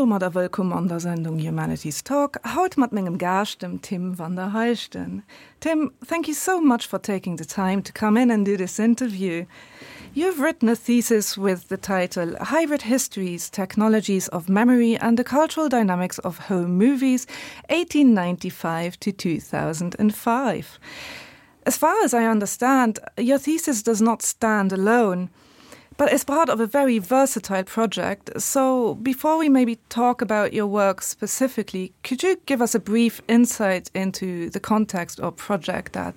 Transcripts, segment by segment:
domadder wëllkomm an der Sendung Humanities Talk, haut mat mengem Gaascht, dem Tim van der Heijden. Tim, thank you so much for taking the time to come in and do this interview. You've written a thesis with the title Hybrid Histories, Technologies of Memory and the Cultural Dynamics of Home Movies 1895 to 2005. As far as I understand, your thesis does not stand alone but it's part of a very versatile project. So before we maybe talk about your work specifically, could you give us a brief insight into the context or project that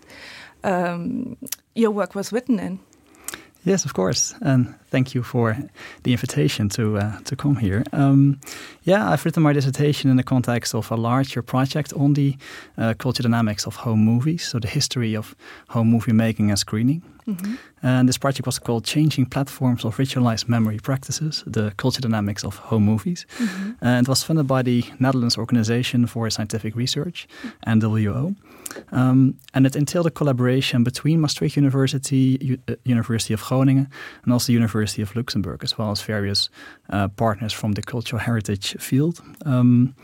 um, your work was written in? Yes, of course, and thank you for the invitation to uh, to come here. Um, yeah, I've written my dissertation in the context of a larger project on the uh, culture dynamics of home movies, so the history of home movie making and screening. Mm -hmm. And this project was called Changing Platforms of Ritualized Memory Practices, the Culture Dynamics of Home Movies. Mm -hmm. And it was funded by the Netherlands Organization for Scientific Research, NWO. Um, and it entailed a collaboration between Maastricht University, U uh, University of Groningen, and also University of Luxembourg, as well as various uh, partners from the cultural heritage field. Um,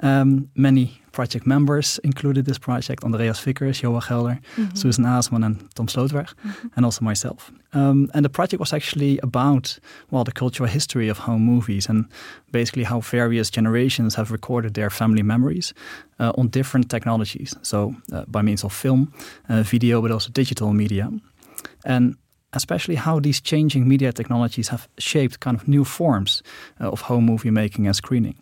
um, many project members included this project, Andreas Vickers, Joa Gelder, mm -hmm. Susan Aasman and Tom Slootweg, mm -hmm. and also myself. Um, and the project was actually about well the cultural history of home movies and basically how various generations have recorded their family memories uh, on different technologies. So uh, by means of film, uh, video, but also digital media. And especially how these changing media technologies have shaped kind of new forms uh, of home movie making and screening.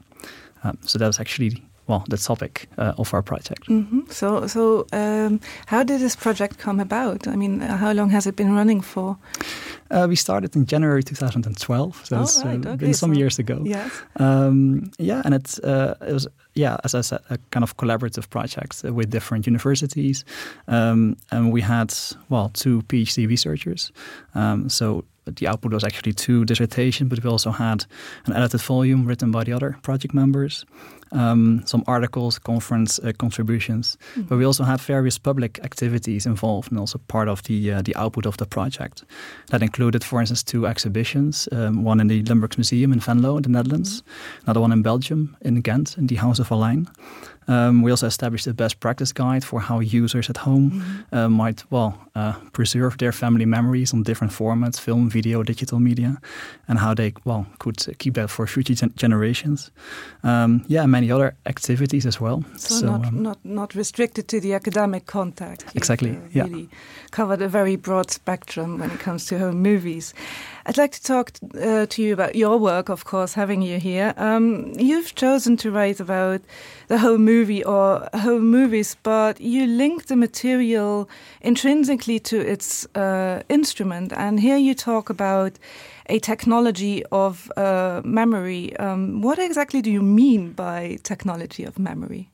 Um, so that was actually well the topic uh, of our project. Mm -hmm. So so um, how did this project come about? I mean, how long has it been running for? Uh, we started in January 2012, so oh, it's uh, right. okay, been some so years ago. Yes. Um, yeah, and it's uh, it was yeah, as I said, a kind of collaborative project with different universities. Um, and we had well two PhD researchers. Um, so the output was actually two dissertations, but we also had an edited volume written by the other project members, um, some articles, conference uh, contributions. Mm. But we also had various public activities involved and also part of the, uh, the output of the project. That included, for instance, two exhibitions, um, one in the Limburgs Museum in Venlo in the Netherlands, mm. another one in Belgium, in Ghent, in the House of Allein. Um, we also established a best practice guide for how users at home mm -hmm. uh, might well uh, preserve their family memories on different formats, film, video, digital media, and how they well could keep that for future gen generations. Um, yeah, many other activities as well. So, so not, um, not, not restricted to the academic contact. You've, exactly. Uh, yeah. Really covered a very broad spectrum when it comes to home movies. I'd like to talk uh, to you about your work, of course, having you here. Um, you've chosen to write about the home movie or home movies, but you link the material intrinsically to its uh, instrument. And here you talk about a technology of uh, memory. Um, what exactly do you mean by technology of memory?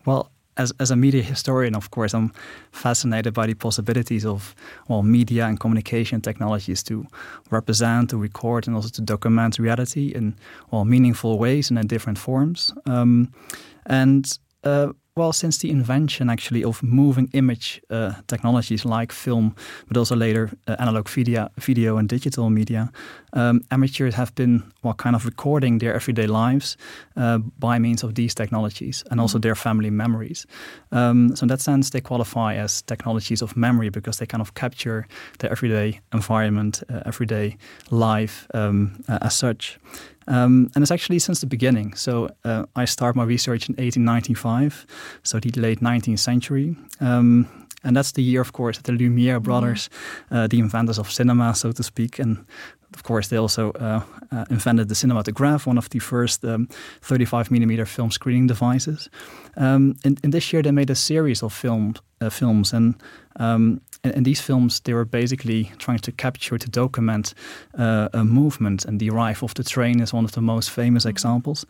Well, as, as a media historian, of course, I'm fascinated by the possibilities of well, media and communication technologies to represent, to record, and also to document reality in well, meaningful ways and in different forms. Um, and uh, well, since the invention actually of moving image uh, technologies like film, but also later uh, analog video, video and digital media, um, amateurs have been well, kind of recording their everyday lives uh, by means of these technologies and also their family memories. Um, so in that sense, they qualify as technologies of memory because they kind of capture their everyday environment, uh, everyday life um, uh, as such. Um, and it's actually since the beginning. So uh, I start my research in 1895, so the late 19th century. Um, and that's the year, of course, that the Lumiere brothers, mm. uh, the inventors of cinema, so to speak, and of course, they also uh, uh, invented the cinematograph, one of the first um, 35 millimeter film screening devices. Um, in, in this year, they made a series of film, uh, films, and um, in, in these films, they were basically trying to capture, to document uh, a movement, and the arrival of the train is one of the most famous examples.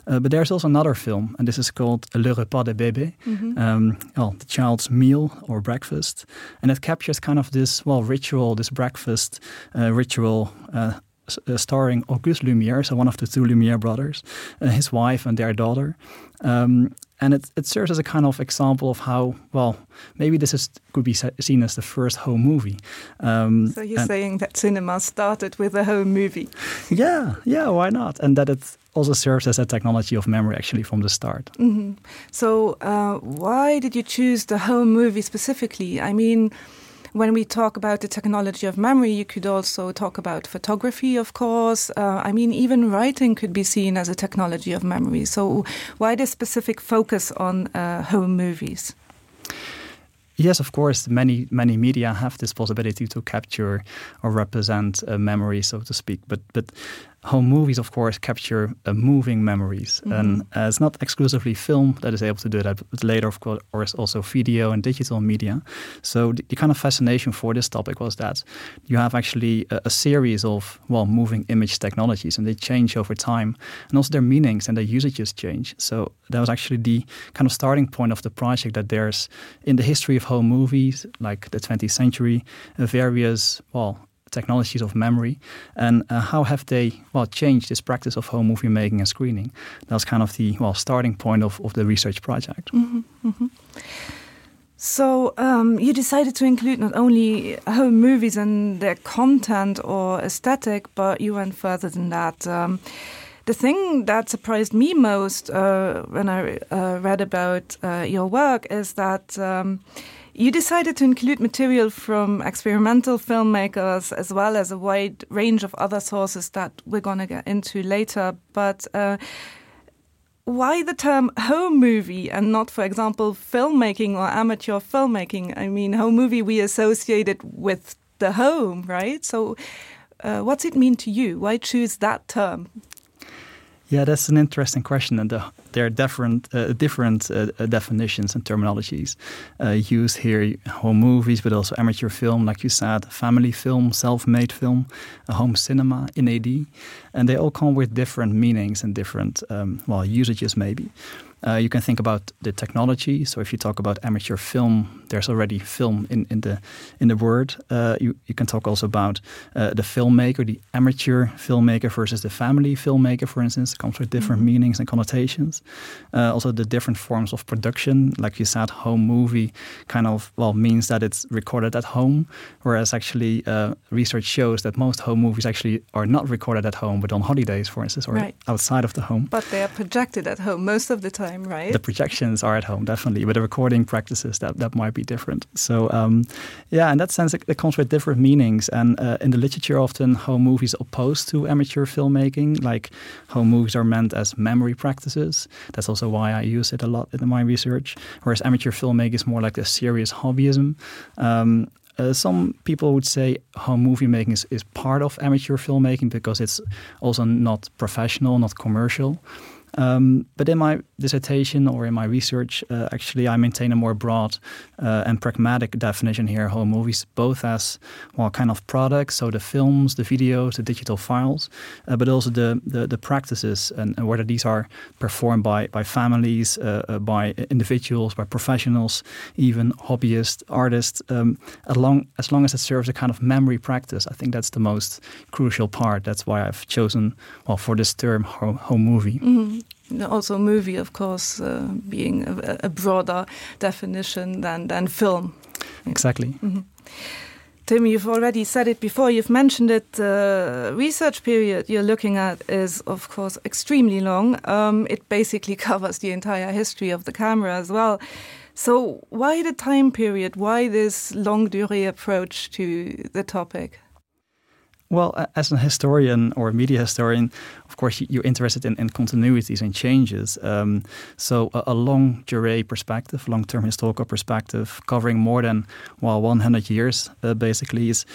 Uh, but there's also another film, and this is called Le Repas de Bébé, mm -hmm. um, well, the child's meal or breakfast. And it captures kind of this, well, ritual, this breakfast uh, ritual uh, uh, starring Auguste Lumière, so one of the two Lumière brothers, uh, his wife and their daughter. Um, And it, it serves as a kind of example of how, well, maybe this is, could be seen as the first home movie. Um, so you're saying that cinema started with a home movie? Yeah, yeah, why not? And that it also serves as a technology of memory actually from the start. Mm -hmm. So uh, why did you choose the home movie specifically? I mean, when we talk about the technology of memory, you could also talk about photography, of course. Uh, I mean, even writing could be seen as a technology of memory. So why this specific focus on uh, home movies? Yes, of course, many many media have this possibility to capture or represent a memory, so to speak. But but home movies, of course, capture uh, moving memories. Mm -hmm. And uh, it's not exclusively film that is able to do that, but later, of course, also video and digital media. So the, the kind of fascination for this topic was that you have actually a, a series of, well, moving image technologies, and they change over time. And also their meanings and their usages change. So that was actually the kind of starting point of the project that there's in the history of home movies, like the 20th century, uh, various, well, technologies of memory and uh, how have they well changed this practice of home movie making and screening that's kind of the well starting point of, of the research project mm -hmm, mm -hmm. So um, you decided to include not only home movies and their content or aesthetic, but you went further than that. Um, the thing that surprised me most uh, when I uh, read about uh, your work is that um, you decided to include material from experimental filmmakers as well as a wide range of other sources that we're going to get into later. But uh, why the term home movie and not, for example, filmmaking or amateur filmmaking? I mean, home movie we associate it with the home, right? So uh, what's it mean to you? Why choose that term? Yeah, that's an interesting question, and the, there are different uh, different uh, uh, definitions and terminologies uh, used here: home movies, but also amateur film, like you said, family film, self-made film, a home cinema in AD, and they all come with different meanings and different um, well usages, maybe. Uh, you can think about the technology. So if you talk about amateur film, there's already film in, in the in the word. Uh, you, you can talk also about uh, the filmmaker, the amateur filmmaker versus the family filmmaker, for instance. It comes with different mm -hmm. meanings and connotations. Uh, also the different forms of production, like you said, home movie kind of well means that it's recorded at home, whereas actually uh, research shows that most home movies actually are not recorded at home, but on holidays, for instance, or right. outside of the home. But they are projected at home most of the time right? The projections are at home, definitely, but the recording practices that, that might be different. So um, yeah, in that sense, it, it comes with different meanings. And uh, in the literature, often home movies opposed to amateur filmmaking, like home movies are meant as memory practices. That's also why I use it a lot in my research. Whereas amateur filmmaking is more like a serious hobbyism. Um, Uh, some people would say home movie making is, is part of amateur filmmaking because it's also not professional, not commercial. Um, but in my dissertation or in my research, uh, actually, I maintain a more broad uh, and pragmatic definition here, home movies, both as well kind of products, so the films, the videos, the digital files, uh, but also the, the, the practices and, and whether these are performed by, by families, uh, uh, by individuals, by professionals, even hobbyists, artists, um, as, long, as long as it serves a kind of memory practice, I think that's the most crucial part. That's why I've chosen well, for this term, home, home movie. Mm -hmm also movie of course uh, being a, a broader definition than than film exactly mm -hmm. Tim you've already said it before you've mentioned it the uh, research period you're looking at is of course extremely long um, it basically covers the entire history of the camera as well so why the time period why this long durée approach to the topic Well, as a historian or a media historian, of course, you're interested in, in continuities and changes. Um, so a, a long durée perspective, long-term historical perspective, covering more than well 100 years, uh, basically, is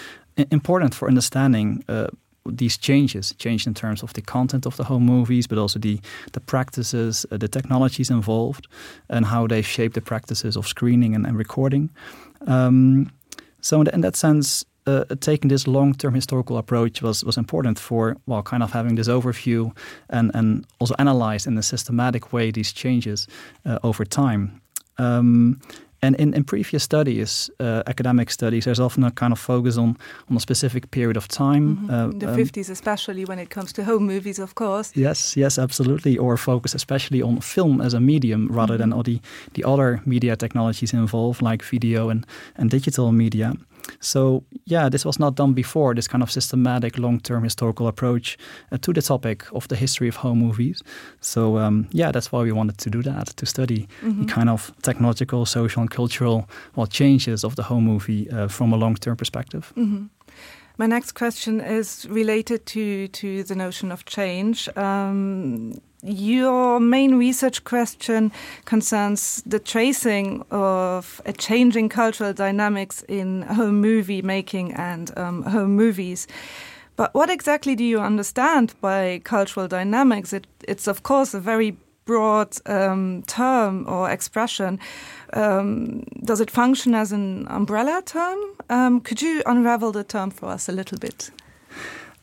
important for understanding uh, these changes, change in terms of the content of the home movies, but also the, the practices, uh, the technologies involved, and how they shape the practices of screening and, and recording. Um, so in, in that sense, uh, taking this long-term historical approach was was important for well kind of having this overview and and also analyze in a systematic way these changes uh, over time. Um, And in, in previous studies, uh, academic studies, there's often a kind of focus on, on a specific period of time. Mm -hmm. uh, in the um, 50s, especially when it comes to home movies, of course. Yes, yes, absolutely. Or focus especially on film as a medium rather mm -hmm. than all the, the other media technologies involved, like video and, and digital media. So yeah, this was not done before, this kind of systematic long-term historical approach uh, to the topic of the history of home movies. So um, yeah, that's why we wanted to do that, to study mm -hmm. the mm-hmm. kind of technological, social and cultural well, changes of the home movie uh, from a long-term perspective. Mm -hmm. My next question is related to, to the notion of change. Um, your main research question concerns the tracing of a changing cultural dynamics in home movie making and um, home movies. But what exactly do you understand by cultural dynamics? It, it's of course a very broad um, term or expression. Um, does it function as an umbrella term? Um, could you unravel the term for us a little bit?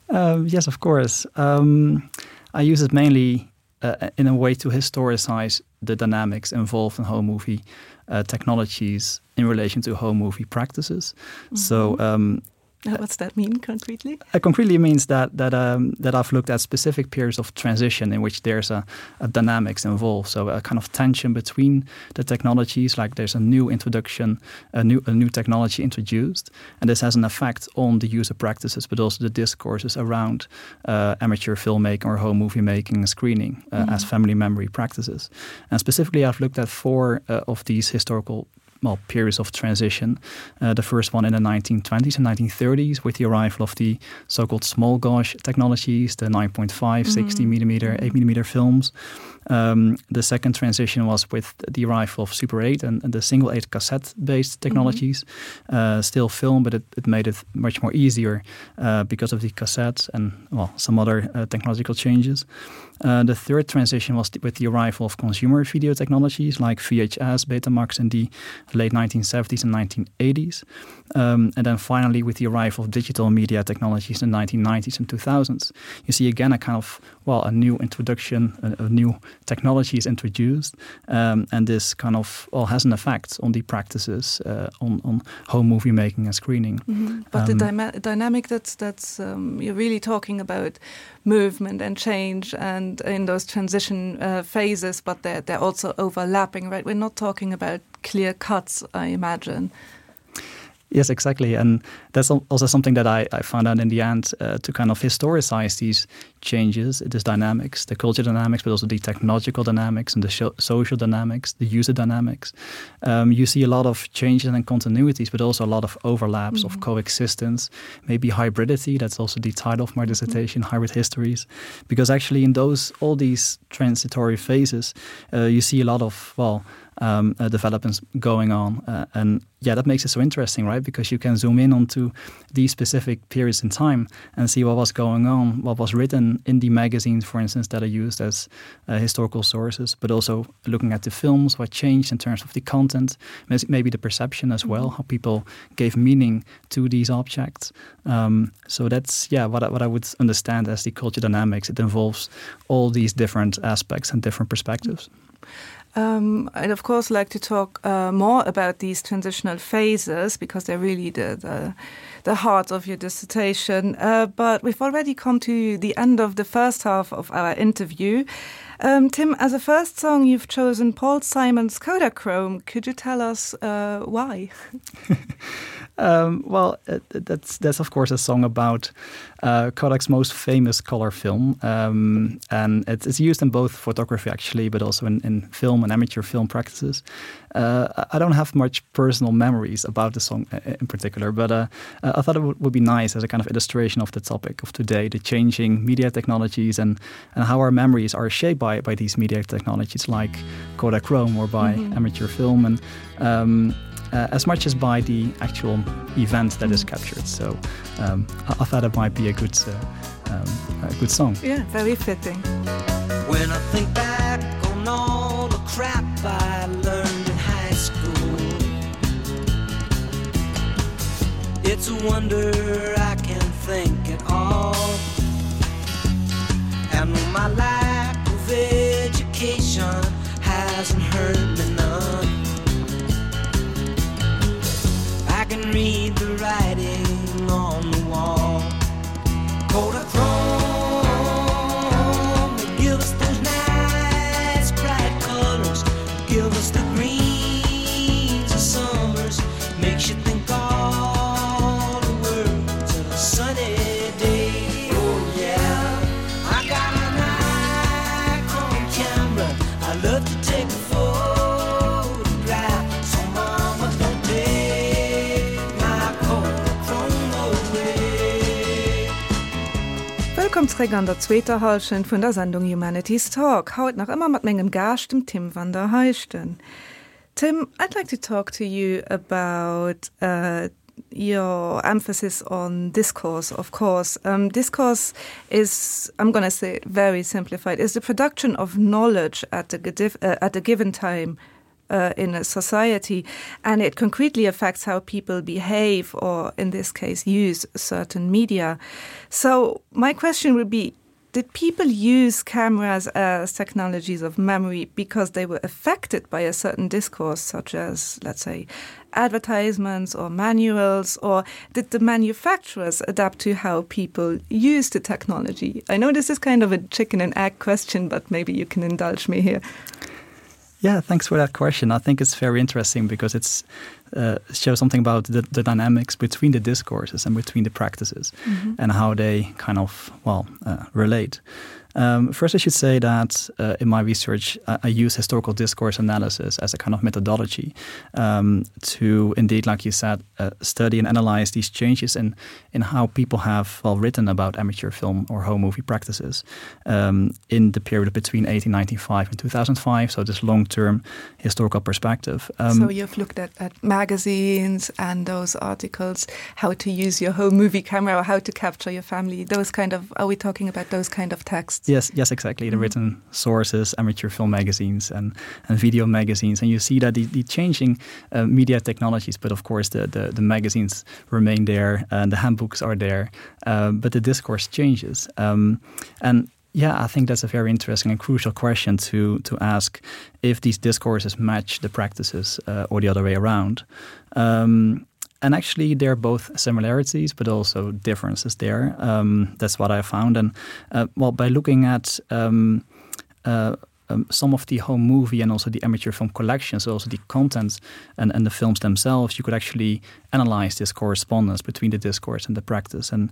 Um, yes, of course. Um, I use it mainly uh, in a way to historicize the dynamics involved in home movie uh, technologies in relation to home movie practices. Mm -hmm. So um, What's that mean concretely? Uh, concretely means that that um, that I've looked at specific periods of transition in which there's a, a dynamics involved, so a kind of tension between the technologies, like there's a new introduction, a new a new technology introduced, and this has an effect on the user practices, but also the discourses around uh, amateur filmmaking or home movie making and screening uh, mm -hmm. as family memory practices. And specifically, I've looked at four uh, of these historical well, periods of transition. Uh, the first one in the 1920s and 1930s with the arrival of the so-called small gauge technologies, the 9.5, mm -hmm. 60 millimeter, 8 millimeter films. Um, the second transition was with the arrival of Super 8 and, and the single 8 cassette-based technologies. Mm -hmm. uh, still film, but it, it made it much more easier uh, because of the cassettes and well, some other uh, technological changes. Uh, the third transition was with the arrival of consumer video technologies like VHS, Betamax in the late 1970s and 1980s. Um, and then finally, with the arrival of digital media technologies in the 1990s and 2000s, you see again a kind of, well, a new introduction, a, a new technology is introduced. Um, and this kind of well, has an effect on the practices uh, on, on home movie making and screening. Mm -hmm. But um, the dynamic that's, that's um, you're really talking about movement and change and in those transition uh, phases, but they're, they're also overlapping, right? We're not talking about clear cuts, I imagine. Yes, exactly. And that's also something that I, I found out in the end uh, to kind of historicize these changes, this dynamics, the culture dynamics, but also the technological dynamics and the social dynamics, the user dynamics. Um, you see a lot of changes and continuities, but also a lot of overlaps mm -hmm. of mm-hmm. coexistence, maybe hybridity. That's also the title of my mm-hmm. dissertation, mm -hmm. Hybrid Histories. Because actually in those all these transitory phases, uh, you see a lot of, well, um, uh, developments going on. Uh, and yeah, that makes it so interesting, right? Because you can zoom in onto these specific periods in time and see what was going on, what was written in the magazines, for instance, that are used as uh, historical sources, but also looking at the films, what changed in terms of the content, maybe the perception as well, mm -hmm. how people gave meaning to these objects. Um, so that's yeah, what I, what I would understand as the culture dynamics. It involves all these different aspects and different perspectives. Mm -hmm. Um, I'd of course like to talk uh, more about these transitional phases because they're really the, the, the heart of your dissertation. Uh, but we've already come to the end of the first half of our interview. Um, Tim, as a first song, you've chosen Paul Simon's Kodachrome. Could you tell us uh, why? um, well, uh, that's, that's of course a song about uh, Kodak's most famous color film. Um, and it's, it's used in both photography actually, but also in, in film and amateur film practices. Uh, I don't have much personal memories about the song uh, in particular, but uh, uh, I thought it would be nice as a kind of illustration of the topic of today, the changing media technologies and, and how our memories are shaped by, by these media technologies like Kodachrome or by mm -hmm. amateur film and um, uh, as much as by the actual event that mm -hmm. is mm-hmm. captured. So um, I, I thought it might be a good, uh, um, a good song. Yeah, very fitting. When I think back on all the crap I learned in high school, it's a wonder I can think at all. And my lack of education hasn't hurt me none. can read the writing on the wall. Kodachrome, give us those nice bright colors, give us the greens of summers, makes you think all the world's a sunny day. Oh yeah, I got an Nikon camera, I love to take a photograph. So mama, don't take my Kodachrome away. Wëllkomm zréck an der zweeter Hallschent vun der Sendung Humanities Talk, haut nach ëmmer mat mengem Gaascht, dem Tim van der Heijden. Tim, I'd like to talk to you about uh, your emphasis on discourse, of course. Um, discourse is, I'm going to say it very simplified, is the production of knowledge at a, uh, at a given time uh, in a society, and it concretely affects how people behave or, in this case, use certain media. So my question would be, did people use cameras as technologies of memory because they were affected by a certain discourse, such as, let's say, advertisements or manuals, or did the manufacturers adapt to how people use the technology? I know this is kind of a chicken and egg question, but maybe you can indulge me here. Yeah, thanks for that question. I think it's very interesting because it's uh, shows something about the, the dynamics between the discourses and between the practices mm -hmm. and how they kind of well uh, relate. Um, first, I should say that uh, in my research, I, I use historical discourse analysis as a kind of methodology um, to indeed, like you said, uh, study and analyze these changes in, in how people have well written about amateur film or home movie practices um, in the period between 1895 and 2005. So this long-term historical perspective. Um, so you've looked at, at magazines and those articles, how to use your home movie camera or how to capture your family, those kind of, are we talking about those kind of texts? Yes, yes, exactly. The mm -hmm. written sources, amateur film magazines and, and video magazines. And you see that the, the changing uh, media technologies, but of course the, the, the magazines remain there and the handbooks are there, uh, but the discourse changes. Um, and yeah, I think that's a very interesting and crucial question to, to ask if these discourses match the practices uh, or the other way around. Um, and actually there are both similarities but also differences there. Um, that's what I found. And uh, well, by looking at um, uh, um, some of the home movie and also the amateur film collections, also the contents and, and the films themselves, you could actually analyze this correspondence between the discourse and the practice. And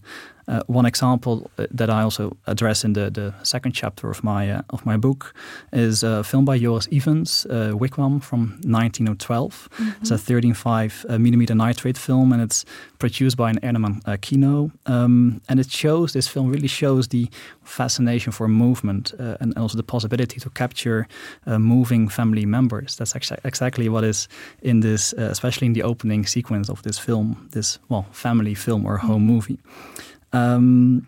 uh, one example uh, that I also address in the, the second chapter of my, uh, of my book is a film by Joris Evans, uh, Wigwam from 1912. Mm -hmm. It's a 13.5 uh, millimeter nitrate film and it's produced by an Ernemann uh, Kino. Um, and it shows, this film really shows the fascination for movement uh, and also the possibility to capture uh, moving family members. That's exa exactly what is in this, uh, especially in the opening sequence of this film, this well family film or home mm -hmm. movie. Um,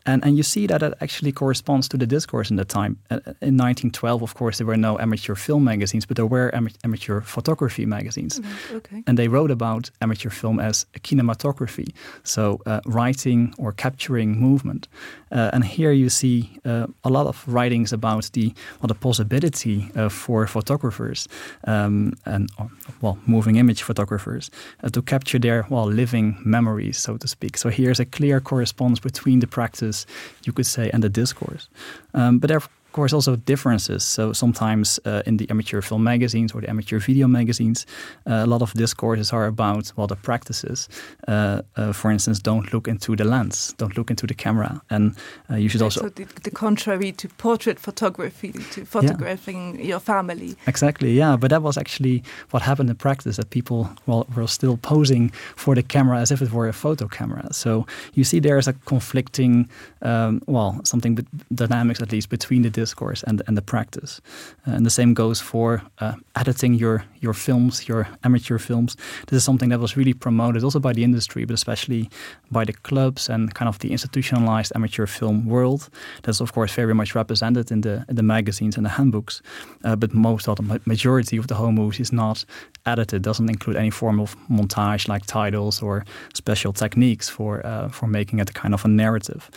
and, and you see that it actually corresponds to the discourse in the time. Uh, in 1912, of course, there were no amateur film magazines, but there were am amateur photography magazines. Mm -hmm. okay. And they wrote about amateur film as kinematography, so uh, writing or capturing movement. Uh, and here you see uh, a lot of writings about the, well, the possibility uh, for photographers um, and or, well, moving image photographers uh, to capture their well, living memories, so to speak. So here's a clear correspondence between the practice, you could say, and the discourse. Um, but there course also differences. So sometimes uh, in the amateur film magazines or the amateur video magazines, uh, a lot of discourses are about well the practices. Uh, uh, for instance, don't look into the lens, don't look into the camera, and uh, you should also so the, the contrary to portrait photography, to photographing yeah. your family. Exactly, yeah. But that was actually what happened in practice that people well were still posing for the camera as if it were a photo camera. So you see there is a conflicting um, well something dynamics at least between the discourse and, and the practice. Uh, and the same goes for uh, editing your, your films, your amateur films. This is something that was really promoted also by the industry, but especially by the clubs and kind of the institutionalized amateur film world. That's of course very much represented in the, in the magazines and the handbooks. Uh, but most of the majority of the home movies is not edited, doesn't include any form of montage like titles or special techniques for, uh, for making it a kind of a narrative.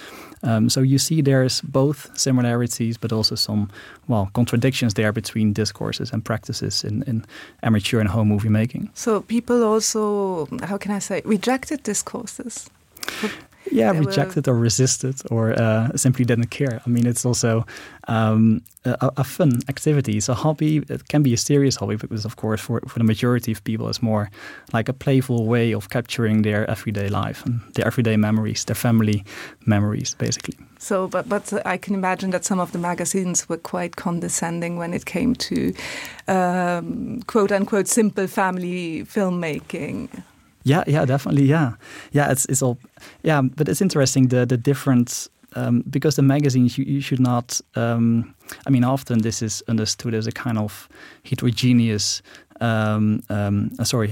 Um, so you see there's both similarities, but also also some well contradictions there between discourses and practices in, in amateur and home movie making. So people also, how can I say, rejected discourses? Yeah, rejected or resisted or uh, simply didn't care. I mean, it's also um, a, a fun activity. It's a hobby. It can be a serious hobby because, of course, for, for the majority of people, it's more like a playful way of capturing their everyday life and their everyday memories, their family memories, basically. So, but, but I can imagine that some of the magazines were quite condescending when it came to um, quote unquote simple family filmmaking. Yeah, yeah, definitely. Yeah, yeah, it's, it's all yeah, but it's interesting the, the different um, because the magazines you, you should not um, I mean often this is understood as a kind of heterogeneous um, um, uh, sorry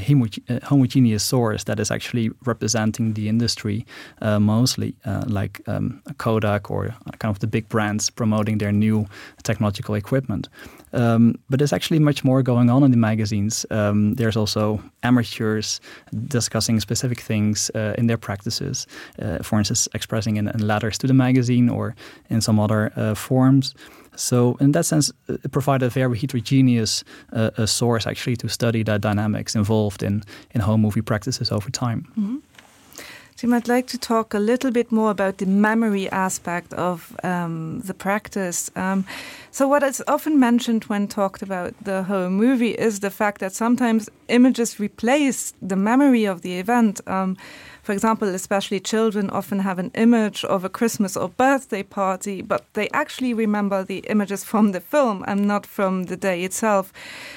uh, homogeneous source that is actually representing the industry uh, mostly uh, like um, Kodak or kind of the big brands promoting their new technological equipment. Um, but there's actually much more going on in the magazines. Um, there's also amateurs discussing specific things uh, in their practices, uh, for instance, expressing in, in letters to the magazine or in some other uh, forms. So in that sense, it provided a very heterogeneous uh, a source actually to study the dynamics involved in, in home movie practices over time. Mm -hmm. So you might like to talk a little bit more about the memory aspect of um, the practice. Um, so what is often mentioned when talked about the home movie is the fact that sometimes images replace the memory of the event. Um, For example, especially children often have an image of a Christmas or birthday party, but they actually remember the images from the film and not from the day itself.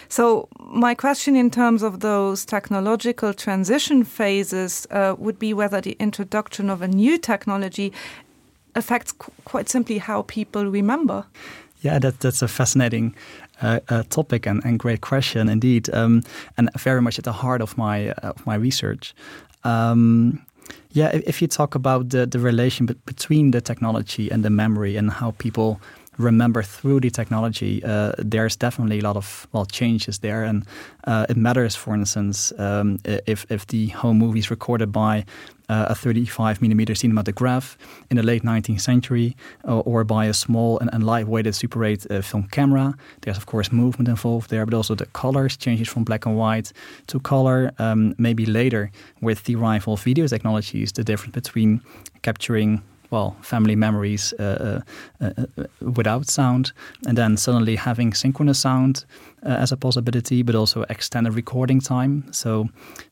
So my question in terms of those technological transition phases uh, would be whether the introduction of a new technology affects qu quite simply how people remember. Yeah, that, that's a fascinating uh, uh, topic and, and great question indeed, um, and very much at the heart of my, uh, of my research. Um, yeah, if, if you talk about the, the relation between the technology and the memory and how people remember through the technology, uh, there's definitely a lot of well changes there and uh, it matters for instance um, if, if the home movie is recorded by uh, a 35 millimeter cinematograph in the late 19th century uh, or by a small and, and lightweighted Super 8 uh, film camera. There's of course movement involved there, but also the colors changes from black and white to color. Um, maybe later with the rival video technologies, the difference between capturing well family memories uh, uh, uh, uh, without sound and then suddenly having synchronous sound uh, as a possibility but also extended recording time so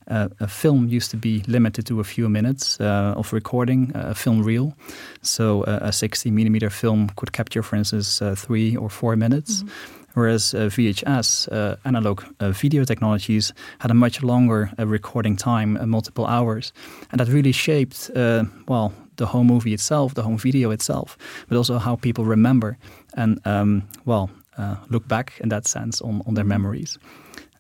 uh, a film used to be limited to a few minutes uh, of recording uh, a film reel so uh, a 60 millimeter film could capture for instance uh, three or four minutes mm -hmm whereas uh, VHS uh, analog uh, video technologies had a much longer uh, recording time uh, multiple hours and that really shaped uh, well the home movie itself, the home video itself, but also how people remember and um, well uh, look back in that sense on, on their memories.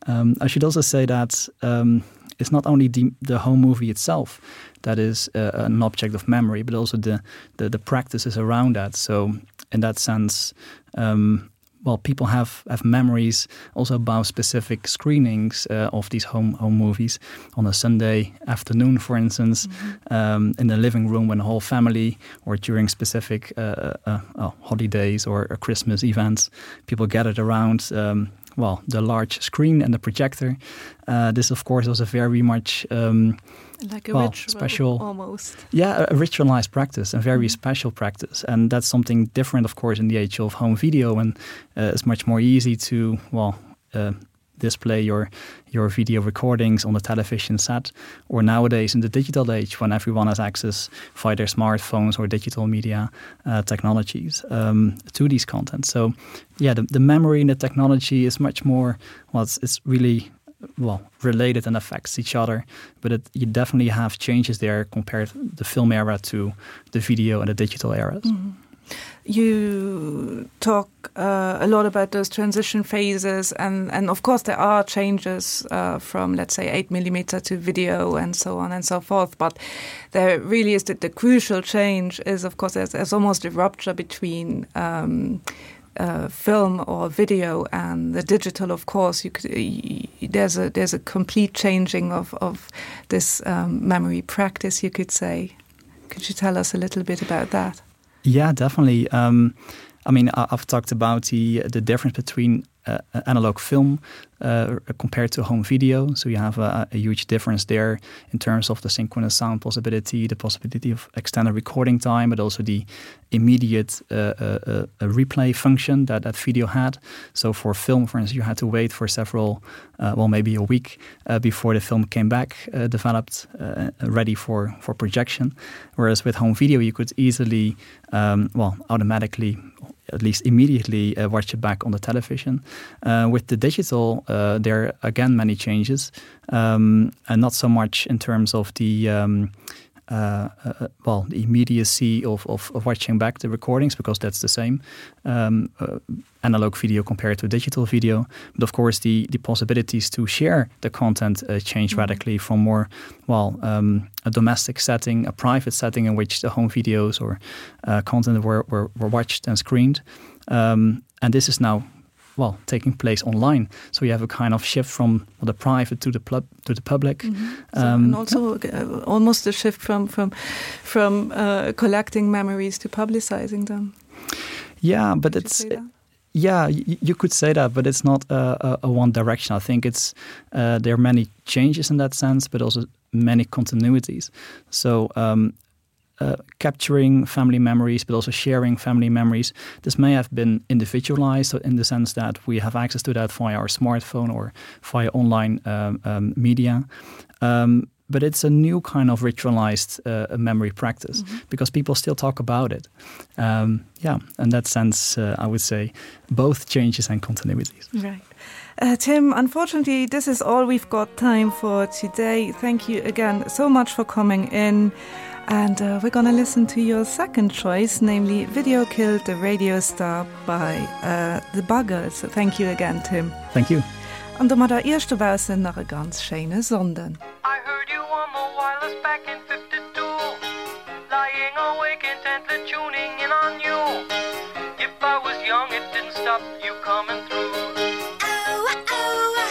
Um, I should also say that um, it's not only the, the home movie itself that is uh, an object of memory, but also the, the, the practices around that. So in that sense, um, well people have have memories also about specific screenings uh, of these home home movies on a Sunday afternoon for instance mm -hmm. um, in the living room when the whole family or during specific uh, uh, uh, holidays or, or Christmas events people gathered around um, well the large screen and the projector uh, this of course was a very much um, like a well, ritual, special almost yeah a ritualized practice and very mm -hmm. special practice and that's something different of course in the age of home video and uh, it's much more easy to well uh, display your your video recordings on the television set or nowadays in the digital age when everyone has access via their smartphones or digital media uh, technologies um, to these content so yeah the, the memory and the technology is much more well it's, it's really well related and affects each other but it, you definitely have changes there compared the film era to the video and the digital eras mm -hmm. You talk uh, a lot about those transition phases and, and of course there are changes uh, from let's say 8 millimeter to video and so on and so forth but there really is that the crucial change is of course there's, there's almost a rupture between um, uh, film or video and the digital of course you could there's a there's a complete changing of of this um, memory practice you could say could you tell us a little bit about that yeah definitely um, I mean, I've talked about the, the difference between uh, analog film uh, compared to home video. So you have a, a huge difference there in terms of the synchronous sound possibility, the possibility of extended recording time, but also the immediate uh, uh, uh, replay function that that video had. So for film, for instance, you had to wait for several, uh, well, maybe a week uh, before the film came back uh, developed, uh, ready for, for projection. Whereas with home video, you could easily, um, well, automatically at least immediately uh, watch it back on the television. Uh, with the digital, uh, there are again many changes um, and not so much in terms of the um, uh, uh, well the immediacy of, of, of watching back the recordings because that's the same um, uh, analog video compared to digital video but of course the the possibilities to share the content uh, change mm -hmm. radically from more well um, a domestic setting a private setting in which the home videos or uh, content were, were, were watched and screened um, and this is now well taking place online so you have a kind of shift from the private to the pub to the public mm -hmm. so, um, and also uh, almost a shift from from from uh, collecting memories to publicizing them yeah but it's it, yeah you could say that but it's not a, a, a one direction I think it's uh, there are many changes in that sense but also many continuities so um, uh, capturing family memories, but also sharing family memories. This may have been individualized in the sense that we have access to that via our smartphone or via online um, um, media. Um, but it's a new kind of ritualized uh, memory practice mm -hmm. because people still talk about it. Um, yeah, in that sense, uh, I would say both changes and continuities. Right. Uh, Tim, unfortunately, this is all we've got time for today. Thank you again so much for coming in. And uh, we're gonna listen to your second choice, namely Video Killed the Radio Star by uh, the Buggles. Thank you again, Tim. Thank you. An domadder Iech dobaussen nach e ganz schéine Sonnden. I heard you on the wireless back in 52 Lying awake intently tuning in on you If I was young it didn't stop you coming through oh, oh, oh.